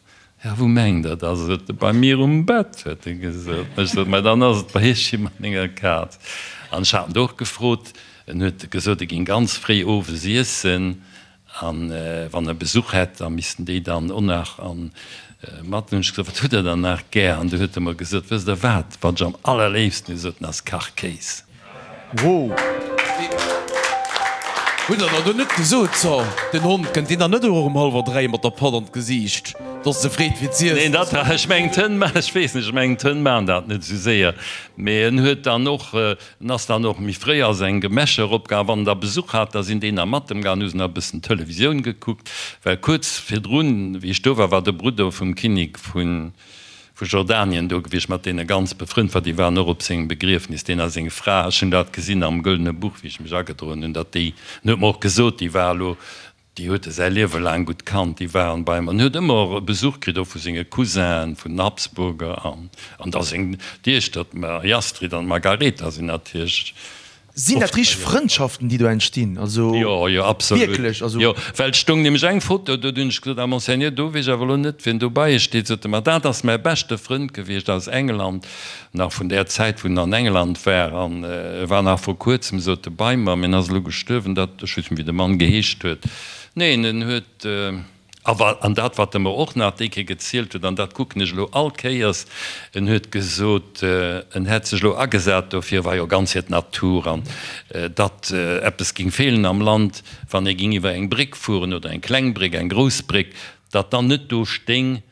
Ja, wou mengt Der, da sot e, bei mir um Bett, huet e gesot. Ech sot, Mä dann ass et bei Iech wéi mat menger Kaz. An ech hat en do och gefrot, en huet gesot, e géing ganz fréi owes iessen an wann e Besuch hätt, da missten déi dann och nach an mat. Hunn ech gesot, Wat hutt Der dann nach gär? An du huet e mer gesot, Wësst Der wat, wat ech am allerléifsten hu, sot en, ass Kachkéis. Wow! Hutt der dann do net gesot, so, den Hond kënnt deen dann net och um hallwer 3 mat der Patt an d'Gesiicht, dass se freet fir z'iessen? Neen, dat, ech mengen d'Hënn, ech weess net, ech mengen d'Hënn maachen dat net esou séier, mee en huet dann och, en ass dann och méi fréi a seng Gemächer eropgaangen. Wann en da Besuch hat, da sinn déi nach mat em gaangen, hu se nach e bëssen Televisioun gekuckt, well kuerz virdrun, wéi ech do war, war de Brudder vum Kinnek vun vu Jordanien do gewiescht, mat deene ganz befrënnt war, déi waren och op sengem Begriefnis, deen a seng Fra, ech hunn dat gesinn am Gëllene Buch, wéi ech mech agedroen hunn, datt déi, en huet mer och gesot, déi war elo, déi huet e säi Liewe laang gutt kannt, déi waren bei em an huet ëmmer och Besuch kritt, och vu senge Cousinen, vun den Habsburger an, an da seng Diechter, d'Marie-Astrid an d'Margaretha sinn natierlech Sinn dat richteg Frëndschaften, déi do entstinn? Also Jo, jo, absolut. wierklech? Also. Jo, well et stoung nämlech eng Foto do, du hunn ech gesot, Ah, Monseigneur, do weess ech awer elo net, wien dobei steet. Sot e, Ma dat ass mäi beschte Frënd gewiescht aus England, nach vun där Zäit, wou en an England war. An e war nach vor kuerzem, sot e, bei mer, mee en ass elo gestuerwen. Dat, ech weess net, wéi de Mann geheescht huet. Neen, en huet. A wa, an dat, wat e mer och nach déi Kéier gezielt huet, an dat kucken ech elo all Kéiers, en huet gesot, en hätt sech elo agesat dofir, war jo ganz fir d'Natur, an datt eppes géing feelen am Land, wann ee géing iwwer eng Bréck fueren, oder eng kleng Bréck, eng grouss Bréck, datt dann net do stéing,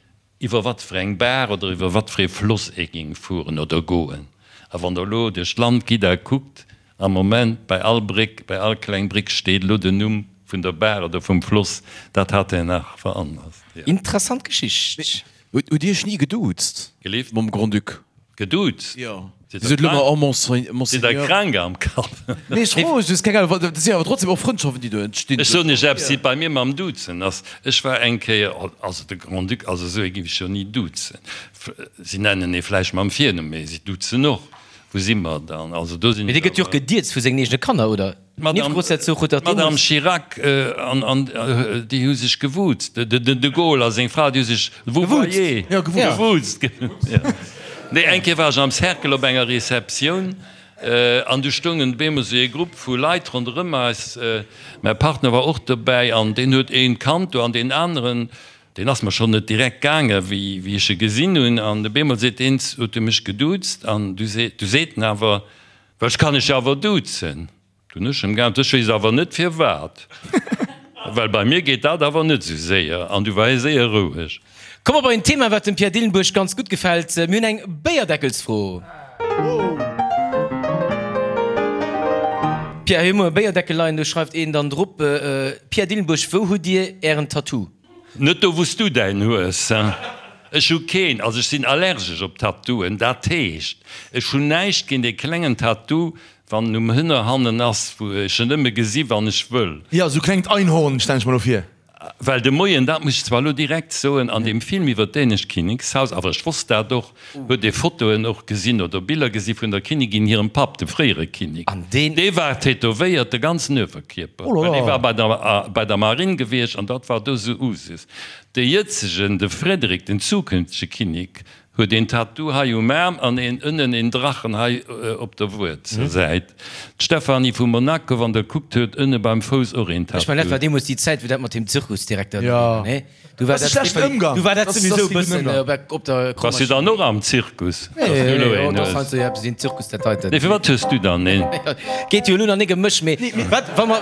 iwwer wat fir eng Baach oder iwwer wat fir ee Floss ee géing fueren oder goen. A wann Der elo duerch d'Land gitt a kuckt, Am Moment, bei all Bréck, bei all kleng Bréck steet elo den Numm vun der Baach oder vum Floss. Dat hat en nach veranlasst, jo. Interessant Geschicht. Hutt Dir Iech ni geduuzt Gelift? mam Grand-Duc? Geduuzt? Jo. Dir sot elo mar, oh Monseigneur. Sidd Der krank am Kapp? Nee, ech froe just, keng Ahnung, dat si awer trotzdem och Frëndschaften, déi do entstinn. Ech soen Iech eppes, wéi et bei mir mam Duzen ass. Ech war eng Kéier, also de Grand-Duc, also esou ee géif ech jo ni duzen. Si nennen ee vläicht mam Virnumm, mee si duzen och. Wou si mer dann? Also do sinn Mee dee gëtt jo och gedierzt vu sengen eegene Kanner, oder? D'Madame d'Madame Chirac an an déi hu sech gewuzt. De de de Gaulle a seng Fra, déi hu sech vouvoyé. Gewuzt. Nee, eng Kéier war ech am Cercle op enger Receptioun an du stoungen op eemol esou ee Grupp vu Leit ronderëm eis. Mäi Partner war och dobäi an deen huet een kannt do an deen aneren Deen ass mer schonn net direkt gaange wéi ech e gesinn hunn. An op eemol seet deen, huet e mech geduuzt an du seet, du seet en awer, well ech kann dech jo awer duzen. Du hunn ech em geäntwert, ech weess awer net firwat, well bei mir geet dat awer net esou séier. An du war hie séier roueg. Komme mer bei en Thema, wat dem Pierre Dillenburg ganz gutt gefält. Mir hunn eng Béierdeckelsfro. Pierre, hei hu mer e Béierdeckel leien, do schreift een dann drop, Pierre Dillenburg, wou hutt Dir Ären Tattoo? Net do wous du däin hues. Ech hu keen, also ech sinn allergesch op Tattooen, dat heescht ech hunn näischt géint ee klengen Tattoo wann en um Hënner hannen ass, wou ech en nëmme gesi wann ech wëll. Jo, sou klengt Einhorn stellen ech mer lo vir. Well de Moien, dat muss ech zwar elo direkt soen, an deem Film iwwer d'dänescht Kinnekshaus, awer ech wosst dat och, huet ee Fotoen och gesinn oder Biller gesi vun der Kinnigin hirem Papp, dem fréiere Kinnek. An deen. Dee war tätowéiert, de ganzen Uewerkierper, well dee war bei der, bei der Marinn gewiescht an dat war do sou Usus. De jëtzegen, de Frederik, den zukünftege Kinnek, huet een Tattoo hei um Aarm an een ënnen een Drachen hei op der Wuerzelsäit. D'Stephanie vu Monaco, wann der kuckt, huet ënne beim Fouss och een Ech mengen, dat Tattoo. war deemools déi Zäit, wou dat mat deem Zirkusdirekter do Ja. war, nee? Du war Dat ass dat, schlechten Ëmgang. Du war dat Dat ass souwisou kee gudden bëssen Ëmgang. op der Bass du dann och am Zirkus? Nee, Dass du elo een dat hues? ass jo eppes een Zirkus dat heiten. Nee, firwat hues du dann een? Geet jo elo nach nik ëm mech, mee wat wa mer,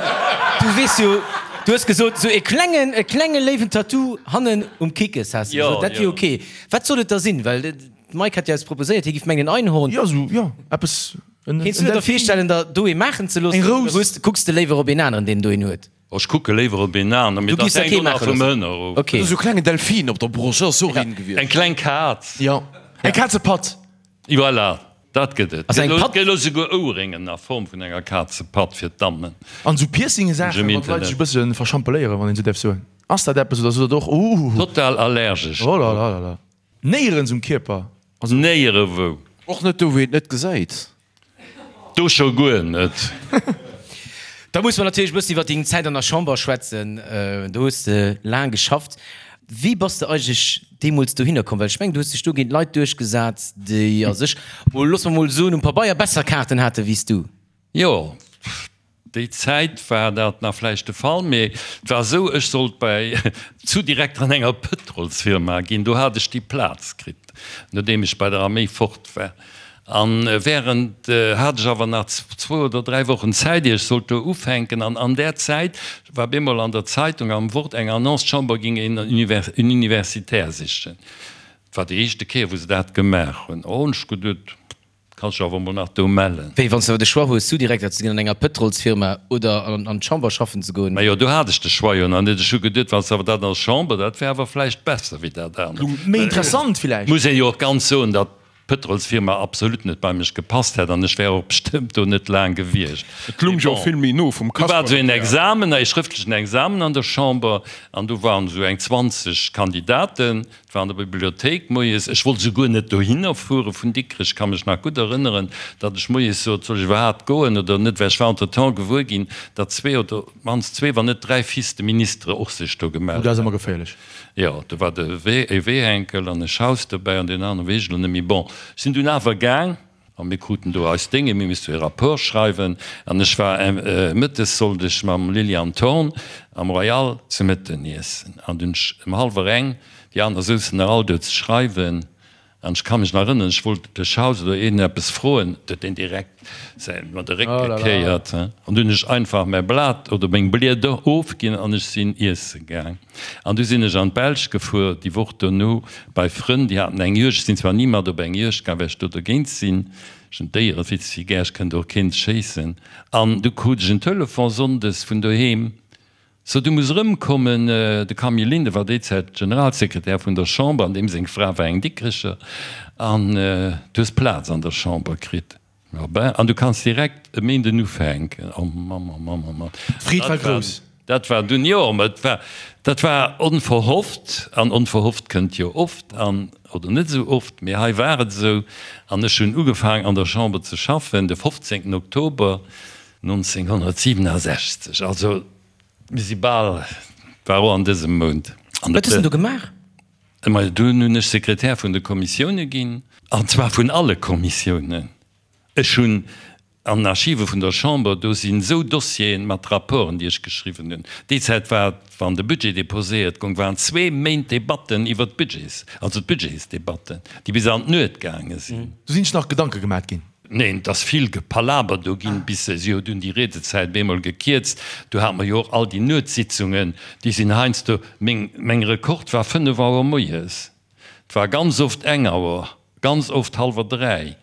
du weess jo, du hues gesot, sou e klengen, e klenge léiwen Tattoo hannen um Kickes has de Jo, gesot, dat wier jo. ok. Wat soll et da sinn? Well d'Mike hat jo eppes proposéiert, hie giff mengen en Einhorn. Jo, sou, jo, eppes, en, Kéints en du der da Delfin. virstellen, der do ee maachen ze loossen Eng oder Rous. hues, kucks de léiwer op een aneren, deen do een huet? Ech kucke léiwer op een aner, mee Du dat giffs der hänkt kee och nach maache vum loossen. Hënner of. Ok. Esou klengen Delfin op der Broscht, dat ass och een gewiescht. Eng kleng Kaz. Jo, eng Kazepatt. Voilà, dat gëtt et. Also eng Patt. Gëtt elo souguer Ouerréngen a Form vun enger Kazepatt fir d'Dammen. An esou Piercinge-Saachen, Im wann d'Leit sech e Internet. bësse verschampeléieren, wann een esou däerf soen. Ass dat eppes oder sot der och, Uhuhu. Total allergesch. Oh la la la la. Néierens um Kierper? Also. Néierewou. Och net do, wou een et net gesäit. Do scho guer net. Da musse mer natierlech e bëssen iwwer deng Zäit an der Chamber schwätzen. Do hues de laang geschafft. Wéi bass de eigentlech deemools dohinner komm? Well ech mengen, du hues dech do géint Leit duerchgesat, déi a sech, mol, loosse mer mol soen, um Pabeier besser Kaarten hate wéi s du. Jo, déi Zäit war dat nach vläicht de Fall, mee et war esou, ech sollt bei Sous-Direkter an enger Pëtrolsfirma ginn. Do hat ech déi Plaz kritt, nodeem ech bei der Arméi fort war. A während hat ech awer nach zwou oder dräi Wochen Zäit, ier ech sollt do ufänken. An an där Zäit war bemol an der Zeitung, am Wort, eng Annonce, d'Chamber géing een Universitaire sichen. Et war déi éischte Kéier, wou se dat gemaach hunn. Oh, hunn ech geduet, kanns dech awer emol nach do mellen. Wéi, wann s de awer de Choix hues, Sous-Direkter ze ginn an enger Pëtrolsfirma oder an d'Chamber schaffen ze goen? Majo, do hat ech de Choix jo nach net. Ech hu geduet, wann s de awer dat an der Chamber, dat wär awer vläicht besser wéi dat anert. Méi interessant villäicht. Muss een jo och ganz soen, datt d'Pëtrolsfirma absolut net bei mech gepasst hätt an ech wär och bestëmmt do net laang gewiescht. Et lung jo och vill méi no vum Do war esou een Examen, ee schrëftlechen Examen an der Chamber an do waren esou eng 20 Kandidaten. Et war an der Bibliothéik moies. Ech wollt esouguer net dohinner fuere vun Dikrech. Ech ka mech nach gutt erënneren, datt ech moies sot, Soll ech iwwerhaapt goen oder net? Well ech war entretemps gewuer ginn, datt zwee oder op d'mannst zwee, wann net dräi Fils de ministre och sech do gemellt Oh, dat ass ëmmer geféierlech. Jo, do war de e Wehenkel an e Schaus dobäi an deen anere weess ech elo net méi. Bon, ech sinn dunn awer gaang a mir kruten do eis Dénge, mir misste e Rapport schreiwen an ech war mëttes sollt ech mam Liliane Thorn am Royal ze Mëtten iessen an dunn ech ëm hallwer eng, déi aner souzen nach all do ze schreiwen An ech ka mech nach erënneren, ech wollt de Schaus oder een eppes froen, do huet deen direkt säin mer de Réck gekéiert. An du hunn ech einfach mäi Blat oder meng Blieder ofginn an ech sinn iesse gaang. An du sinn ech an d'Belsch gefuer déi Woch dono bei Frënn, déi haten eng Juegd. Ech sinn zwar ni mat op eng Juegd gaang, well ech do dogéint sinn, ech hunn d'Déiere vill ze vill gär, ech kënnt och keent schéissen. An du krut ech en Telefon sonndes vun doheem, So, du muss erëmkommen. De Camille Linden war déi Zäit Generalsekretär vun der Chamber, an deem seng Fra war eng Dikrecher. An du hues Plaz an der Chamber kritt. Jo, ben, an du kanns direkt e Méinden ufänken. Oh Mann, oh Mann, oh Mann. D'Freed war grouss. Dat war dunn, jo, mä et war, dat war onverhofft. An onverhofft kënnt jo oft an, oder net esou oft, mee hei war et esou. An ech hunn ugefaang an der Chamber ze schaffen de 15. Oktober 1967, also mir si bal, war och an dësem Mount. Wat hues de do gemaach? Majo, dunn hunn ech Sekretär vun de Kommissioune ginn, an zwar vun alle Kommissiounen. Ech hunn an den Archive vun der Chamber, do sinn esou Dossieren mat Rapporten, déi ech geschriwwen hunn. Déi Zäit war et, wann de Budget déposéiert goung, waren zwee Méint Debatten iwwert d'Budgets, also d'Budgetsdebatten, déi bis an d'Nuet gaange sinn. Do sinn sech nach Gedanke gemat ginn. Neen, et ass vill Gepalaber do ginn, bis se, si huet dunn déi Riedezäit bemol gekierzt. Du hate mer jo och all déi Nuetssitzungen, déi sinn heiansdo, meng, meng Rekord war 5 Auer moies, et war ganz oft eng Auer, ganz oft hallwer 3.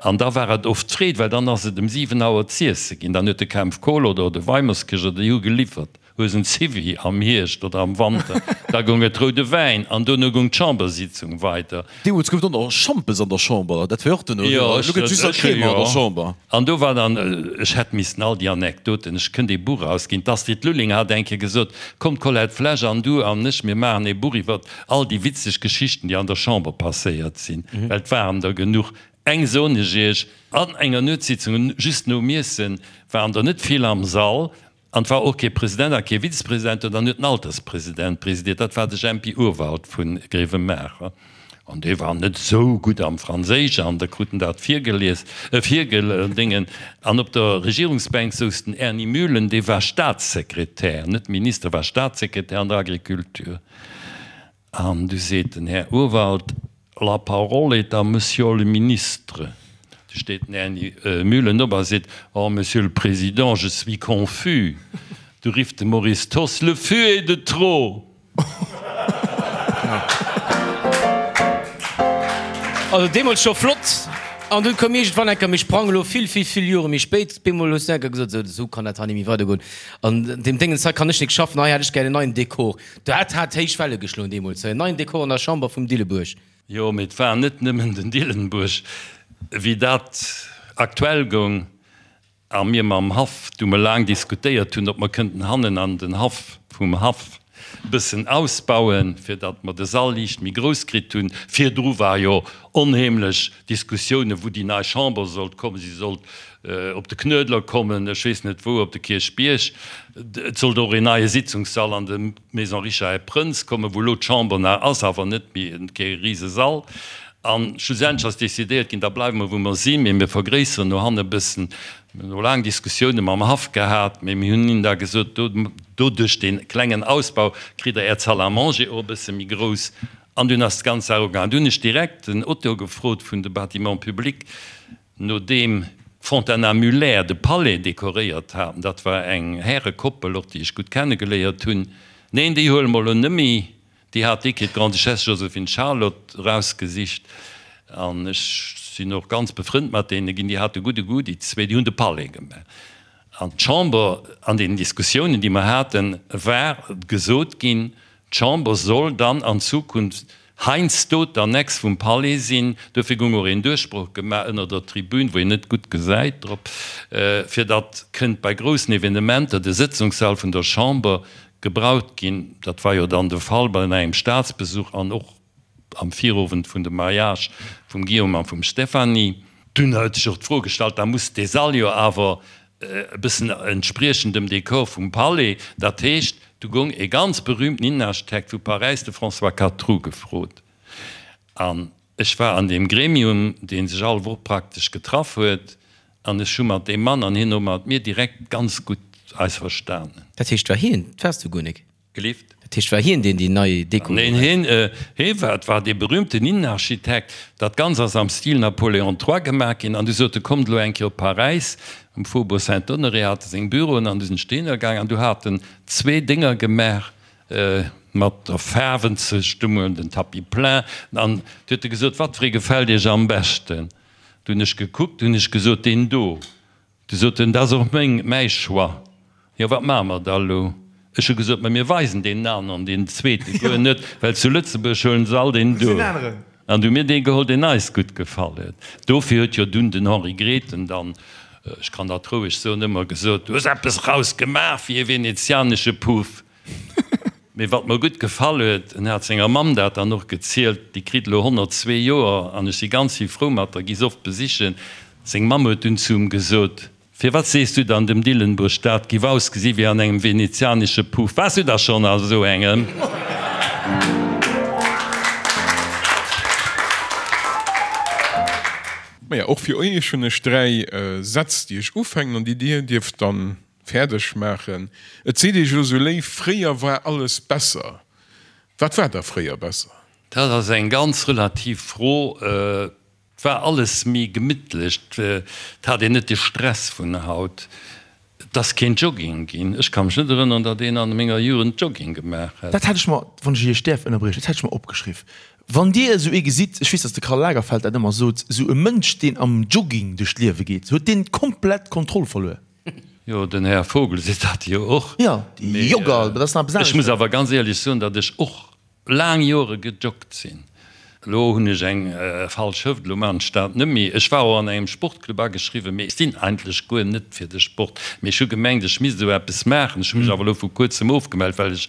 An da war et oft d'Freed, well dann ass et ëm 7 Auer z'iesse ginn. Dann huet de Kempf Kohl oder de Weimerskirch oder déi hu geliwwert. Hues en Zivi am Hierscht oder am Wanter, da goung et roude Wäin an dono goung d'Chambersitzung weider. Deemools gouf et och nach Schampes an der Chamber, dat war jo och dono, elo gëtt et just nach Cremant an der Chamber. An do war dann, ech hätt missten all déi Anekdoten, ech kënnt ee Buch erausginn, d'Astrid Lulling hat eng Kéier gesot, Komm Colette Flesch an du an ech, mir maachen ee Buch iwwert all déi witzeg Geschichten, déi an der Chamber passéiert sinn, well et waren der genuch. Eng soen ech iech, An enger Nuetssitzung, just nom Iessen, waren der net vill am Sall, An et war och kee President a kee Vizepresident do, dann huet den Alterspresident presidiert, dat war de Jempi Urwald vu Grevenmacher. An dee war net esou gutt am Franséisch an da krut en dat virgelies, virgedéngen. An op der Regierungsbänk souz den Erny Mühlen, dee war Staatssekretär, net Minister, war Staatssekretär an der Agriculture. An du seet den Här Urwald, La parole est à Monsieur le Ministre. Du steet den Här Mühlen op a seet, Oh, Monsieur le Président, je suis confus. Du rifft de Maurice Thoss, Le fût est de trop! Also deemools scho flott. An dunn koum iergendwann eng Kéier, mir sprangen elo vill, vill, vill Jore méi spéit, bemol hues du eng Kéier gesot, Esou, esou kann dat hei net méi weidergoen. An deem Déngens hei kann ech nik schaffen, hei hätt ech gär en neien Dekor. Dat hat héich Welle geschloen deemools, en neien Dekor an der Chamber vum Dillebuerg. Jo, mee et war net nëmmen den Dillenbuerg. Wéi dat aktuell goung a mir mam Haff du mol laang diskutéiert hunn, ob mer kënnten hannen an den Haff vum Haff e bëssen ausbauen, fir datt mer de Sall liicht méi grouss kritt hunn. Virdru war jo onheemlech Diskussiounen, wou déi nei Chamber sollt kommen. Si sollt. Op de Knuedler kommen, ech weess net wou, op de Kierchbierg. Et sollt och een neie Sitzungssall an de Maison Richard et Prënz kommen, wou elo d'Chamber nach ass, awer net méi, kee Risesall. A schlussendlech ass decidéiert ginn, da bleiwe mer wou mer sinn, mee mir vergréisseren no hanne e bëssen. Mir hunn och laang Diskussioune mam Haff gehat, mee mir hunn hinnen da gesot, doduerch dee klengen Ausbau kritt Der Är Salle à manger och e bësse méi grouss. An dunn ass d'ganz Saach ugaangen. Du hunn ech direkt den Auteur gefrot vun de Bâtiments publics, Nodeem d'Fontana Muller de Palais dekoréiert haten, dat war eng Härekoppel, och déi ech gutt kennegeléiert hunn, neen, déi huele mer elo nëmmi, déi hat déi Kéier d'Grande-Duchesse Joséphine Charlotte erausgesicht an ech sinn och ganz befrënnt mat deene ginn, déi hate gudde Goût, déi zwee, déi hunn de Palais gemaach. An d'Chamber, an deenen Diskussiounen, déi mer haten, war gesot ginn, D'Chamber soll dann an Zukunft heiansdo d'Annex vum Palais sinn. Dofir goung och een Duerchbroch gemaach ënner der Tribün, wou een net gutt gesäit drop, fir datt kënnt bei groussen Evenementer de Sëtzungssall vun der Chamber gebraucht ginn. Dat war jo dann de Fall bei engem Staatsbesuch an och am Virowend vun dem Mariage vum Guillaume a vum Stéphanie. Dunn huet sech och d'Fro gestallt, da muss dee Sall jo awer e bëssen entspriechen dem Dekor vum Palais. Dat heescht, du goung e ganz berühmten Innenarchitekt vu Paräis, de François Catroux, gefrot. An ech war an deem Gremium, dee sech all Woch praktesch getraff huet, an ech hu mat deem Mann an hien och mat mir direkt ganz gutt eis verstanen. Dat heescht, war hien, dat waars du guer nik? Gelift? Dat heescht, war hien deen déi nei Deko Neen, hien, hie war, et war dee berühmten Innenarchitekt. Dat Ganzt ass am Stil Napoléon III gemaach ginn. An du sot e, Kommt elo eng Kéier op Paräis. Um Faubourg Saint-Honoré hat e seng Büroen an du sinn ech dohinner gaang an du hat en zwee Dénger gemaach mat der Faarwenzestëmmung, den Tapis plein. An du huet e gesot, Wat fir ee gefält Iech am beschten? Du hunn ech gekuckt, du hunn ech gesot, Deen do. Du sot en, Dat ass och meng, mäi Choix. Jo, wat maache mer da elo? Ech hu gesot, Ma mir weisen deen aneren, deen zweete guer net, well zu Lëtzebuerg huelen se all deen do. An du hu mir dee geholl, deen eis gutt gefall huet. Dofir huet jo dunn den Henri Grethen dann, ech kann dat roueg soen, ëmmer gesot, Du hues eppes raus gemaach wéi e venezianesche Puff. Mee wat mer gutt gefall huet, en hat senger Mamm dat dann och gezielt, déi kritt elo 102 Joer an ech si ganz vill frou mat der, gi se oft besichen, seng Mamm huet dunn zu em gesot, Firwat sees du dann dem Dillenburg, dat giff ausgesi wéi an engem venezianesche Puff? Waars du da schonn a sou engem? Maja, och fir iech hunn ech 3 Sätz, déi ech ufänken an déi dir dierft dann Fäerdeg maachen. Et seet Iech elo sou léif, fréier war alles besser. Wat war da fréier besser? Dat ass eng ganz relativ Fro. Et war alles méi gemittlech, et hat een net de Stress vun haut. Et ass keen Jogging ginn. Ech ka mech net erënneren, datt een an menger Jugend Jogging gemaach hätt. Dat hat ech mer, wann ech Iech däerf ënnerbriechen, dat hat ech mer opgeschriff. Wann Dir esou ee gesitt, ech weess, datt de Karl Lagerfeld dat ëmmer sot, esou e Mënsch, deen am Jogging duerch d'Liewe geet, huet deen komplett d'Kontroll verluer. Jo, den Här Vogel seet dat jo och. Jo, déi Jogger, dat ass nach eppes aneschters. Ech muss awer ganz éierlech soen, datt ech och laang Jore gejoggt sinn. Elo hunn ech eng falsch Hëft, elo maachen ech dat net méi. Ech war och an engem Sportclub ageschriwwen, mee ech sinn eigentlech guer net fir de Sport. Mee ech hu gemengt, ech misst esou eppes maachen. Ech hu mech awer elo vu kuerzem ofgemellt, well ech,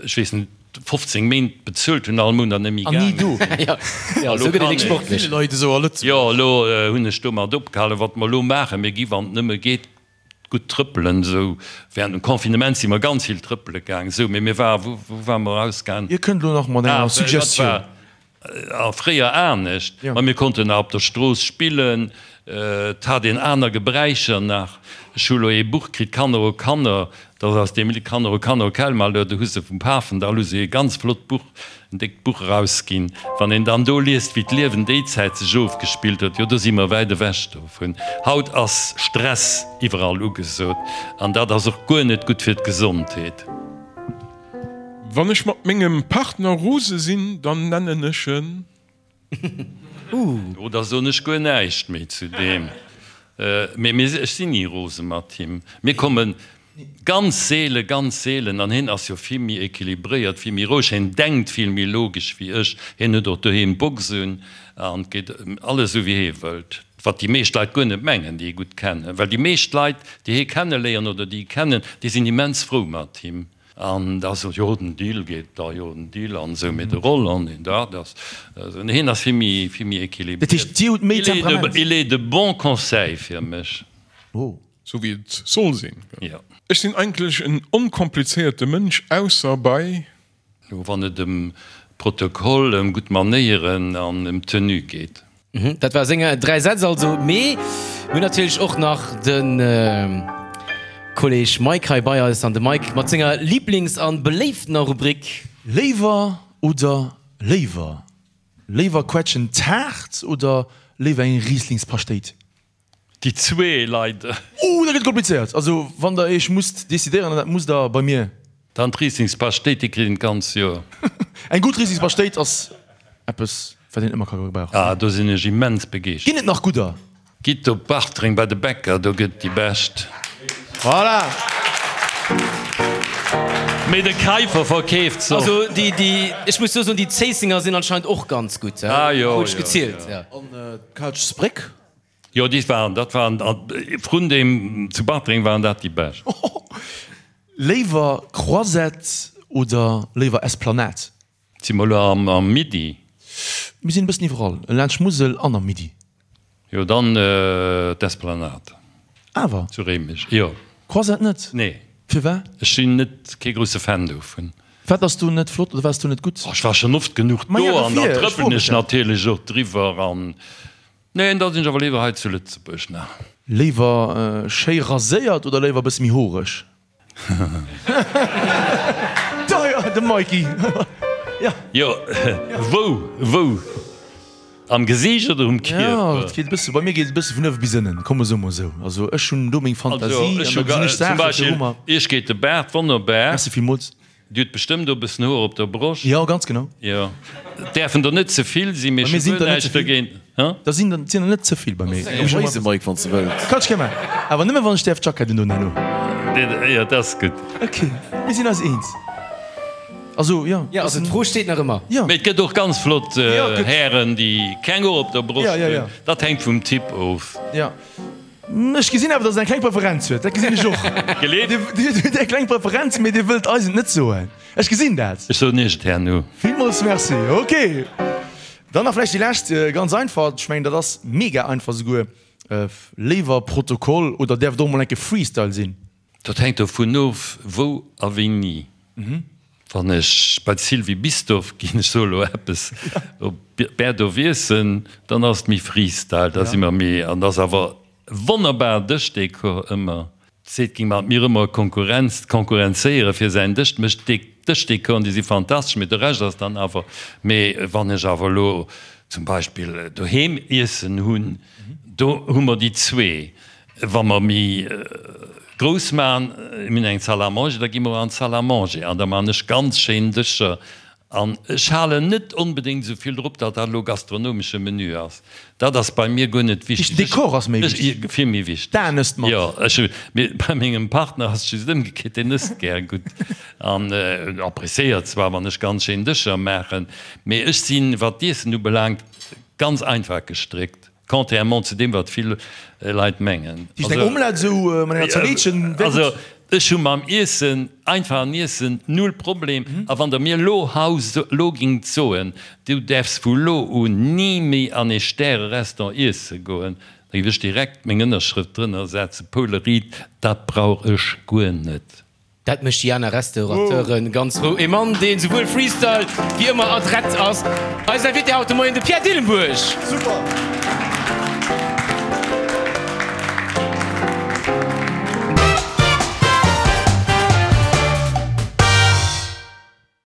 ech weess net, 15 Méint bezuelt hunn all Mount an net méi gaange sinn. Jo, esou gëtt een nik sportlech. Jo, elo hunn ech domat opgehalen. Wat mer elo maachen, mir gi wann et nëmme geet gutt trëppelen. Esou während dem Confinement si mer ganz vill trëppele gaang. Esou, mee mir war, wou ware mer erausgaang? Dir kënnt elo nach mat enger Suggestioun. A fréier anescht, ma mir konnten nach op der Strooss spillen, et hat een aner Gebräicher nach. Ech hu lo ee Buch kritt, Kanner o Kanner, dat ass aus dem Lidd Kanner o Kanner o quel malheur, do hu se vum Pafendall hu se ee ganz flott Buch, en déckt Buch erausginn. Wann een dann do liest, wéi d'Liewen déi Zäit sech ofgespillt huet, jo do si mer wäit ewech dovun. Haut ass Stress iwwerall ugesot an dat ass och guer net gutt fir d'Gesondheet. Wann ech mat mengem Partner rose sinn, dann nennen ech en. Oh, da soen ech guer näischt méi zu deem. Mee mir, ech sinn ni rose mat him. Mir komme ganz seele, ganz seelen, an hien ass jo vill méi equilibréiert, vill méi roueg, hien denkt vill méi logesch wéi ech. Hien huet och doheem d'Box un an et geet alles esou wéi hie wëllt. Wat déi meescht Leit guer net mengen, déi hie gutt kennen. Well déi meescht Leit, déi hie kenneléieren oder déi hie kennen, déi sinn immens frou mat him. An da sot, jo den Dill geet da, jo den Dill an esou, mee de Roland, deen dat ass esou, hien ass vill méi, vill méi équilibriert. Dat heescht, Dir hutt méi Temperament? Il est de bons conseils fir mech. Oh. Sou wéi et soll sinn. Jo. Ech sinn eigentlech en onkomplizéierte Mënsch, ausser bei. Wann et ëm Protokoll, ëm gutt Manéieren an ëm Tenue geet. Dat war seng 3 Sätz also. Mee mir hunn natierlech och nach de Kolleg Mike hei bei eis. An de Mike mat senger Liiblings an beléiftener Rubrik. Léiwer oder léiwer? Léiwer Quetschen Taart oder léiwer eng Rieslingspaschtéit? Déi zwee leider. Oh, dat gëtt komplizéiert. Also wann der iech musst decidéieren, an dat musst der bei mir. Dann d'Rieslingspaschtéit, déi kritt een d'ganz Joer. Eng gutt Rieslingspaschtéit ass eppes, wat een ëmmer ka gebrauchen. Ah, do sinn ech immens begeeschtert. Ginn et nach gudder? Gitt op Bartreng bei de Bäcker, do gëtt déi bescht. Voilà! Mee de Keifer verkeeft se och. Also déi, déi, ech muss do soen, déi Zéissenger sinn anscheinend och ganz gutt, Ah jo, krut ech jo, gezielt, jo. jo. An d'Kalchsbréck? Jo, déi waren, dat waren, vrun deem zu Bartreng waren dat déi bescht. Léiwer Croisette oder léiwer Esplanade? Si mer elo am Midi? Mir sinn e bëssen iwwerall, laanscht Musel an am Midi. Jo, dann d'Esplanade. Awer? Zu Réimech, jo. Croisette net? Nee. Firwat? Ech sinn net kee grousse Fan dovun. Wat ass do net flott oder wat ass do net gutt? Ech war schonn oft genuch do an dann trëppelen ech natierlech och driwwer an. Neen, da sinn ech awer léiwer hei zu Lëtzebuerg nach. Léiwer schéi raséiert oder léiwer e bësse méi horeg? De Mikey, jo. Jo, wou, wou? Am Gesiicht oder um Kierper? Jo, et geet e bësse, bei mir geet et e bësse vun uewe bis ënnen, komm mer soe mol esou. Also ech hunn do meng Fantasie an da gesinn ech Zum Saachen Beispill, viru mer. Iech geet de Baart wonnerbar. Merci villmools. Dir hutt bestëmmt och e bëssen Hoer op der Broscht. Jo, ganz genau. Jo, et däerfen der net ze vill sinn, mee Bei mir ech hu sinn guer der net ze näischt vill. dergéint. Hä? Da sinn der, sinn der net ze vill bei mir. Eng Weise, Mike, wann s de wëlls. Kann ech gär maachen. Awer nëmme wann ech däerf d'Jackett undon herno. Jo, dat ass gutt. Ok, mir sinn eis eens. Also, jo. Jo, also d'Fro steet nach ëmmer. Jo. Mee et gëtt och ganz flott Jo, et gëtt. Hären, déi keng Hoer op der Broscht Jo, jo, jo. hunn. Dat hänkt vum Typ of. Jo. Ech gesinn awer, dass Der eng kleng Preferenz huet. Dat gesinn ech och. Geleet. Dir hutt eng kleng Preferenz, mee Dir wëllt eis et net soen. Ech gesinn dat. Ech soen Iech et herno. Villmools Merci. Ok. Dann nach vläicht déi lescht, ganz einfach. Ech mengen, dat ass mega einfach souguer. Léiwer Protokoll oder däerf et och mol enke Freestyle sinn? Dat hänkt dovun of, wou a wéini. Wann ech bei d'Sylvie Bisdorff ginn, ech soe lo eppes, op Berdorf iessen, dann ass et méi Freestyle, da si mer méi, an ass awer wonnerbar Dëschdekor ëmmer. Seet ging mat mir ëmmer Konkurrenz, konkurrenzéiere fir säin Dësch, mécht Dëschdekoren, déi si fantastesch, mee de Rescht ass dann awer, mee wann ech awer elo zum Beispill doheem iessen hunn, do hu mer déi zwee. Wa mer méi grouss maachen, mir hunn eng Salle à manger, da gi mer an d'Salle à manger an da maachen ech ganz schéin Dëscher. An ech halen net onbedéngt esou vill drop, datt dat elo gastronomesche Menü ass. Dat ass bei mir guer net wichteg. Den Dekor ass méi wichteg. Vill méi wichteg. D'Aen ësst mat. Jo, ech hu, mee bei mengem Partner ass et just ëmgekéiert, deen ësst gär gutt an appréciéiert zwar, wann ech ganz schéin Dëscher maachen, mee ech sinn, wat d'Iessen ubelaangt, ganz einfach gestréckt. Contrairement zu deem, wat vill Leit mengen. Déi eng Omelette esou mat enger Zalitchen wär gutt. Also ech hu mam Iessen, einfachen Iessen, null Problem. A wann der mir elo haut, elo gingt soen, du däerfs vu lo un ni méi an ee Stäre-Restaurant iesse goen, da géif ech direkt meng Ënnerschrëft drënner setzen, Paule Ried, dat brauch ech guer net. Dat mécht déi aner Restaurateuren ganz frou. E Mann, deen souwuel Freestyle wéi ëmmer adrett ass. Eisen Invité haut de Moien, de Pierre Dillenburg. Super!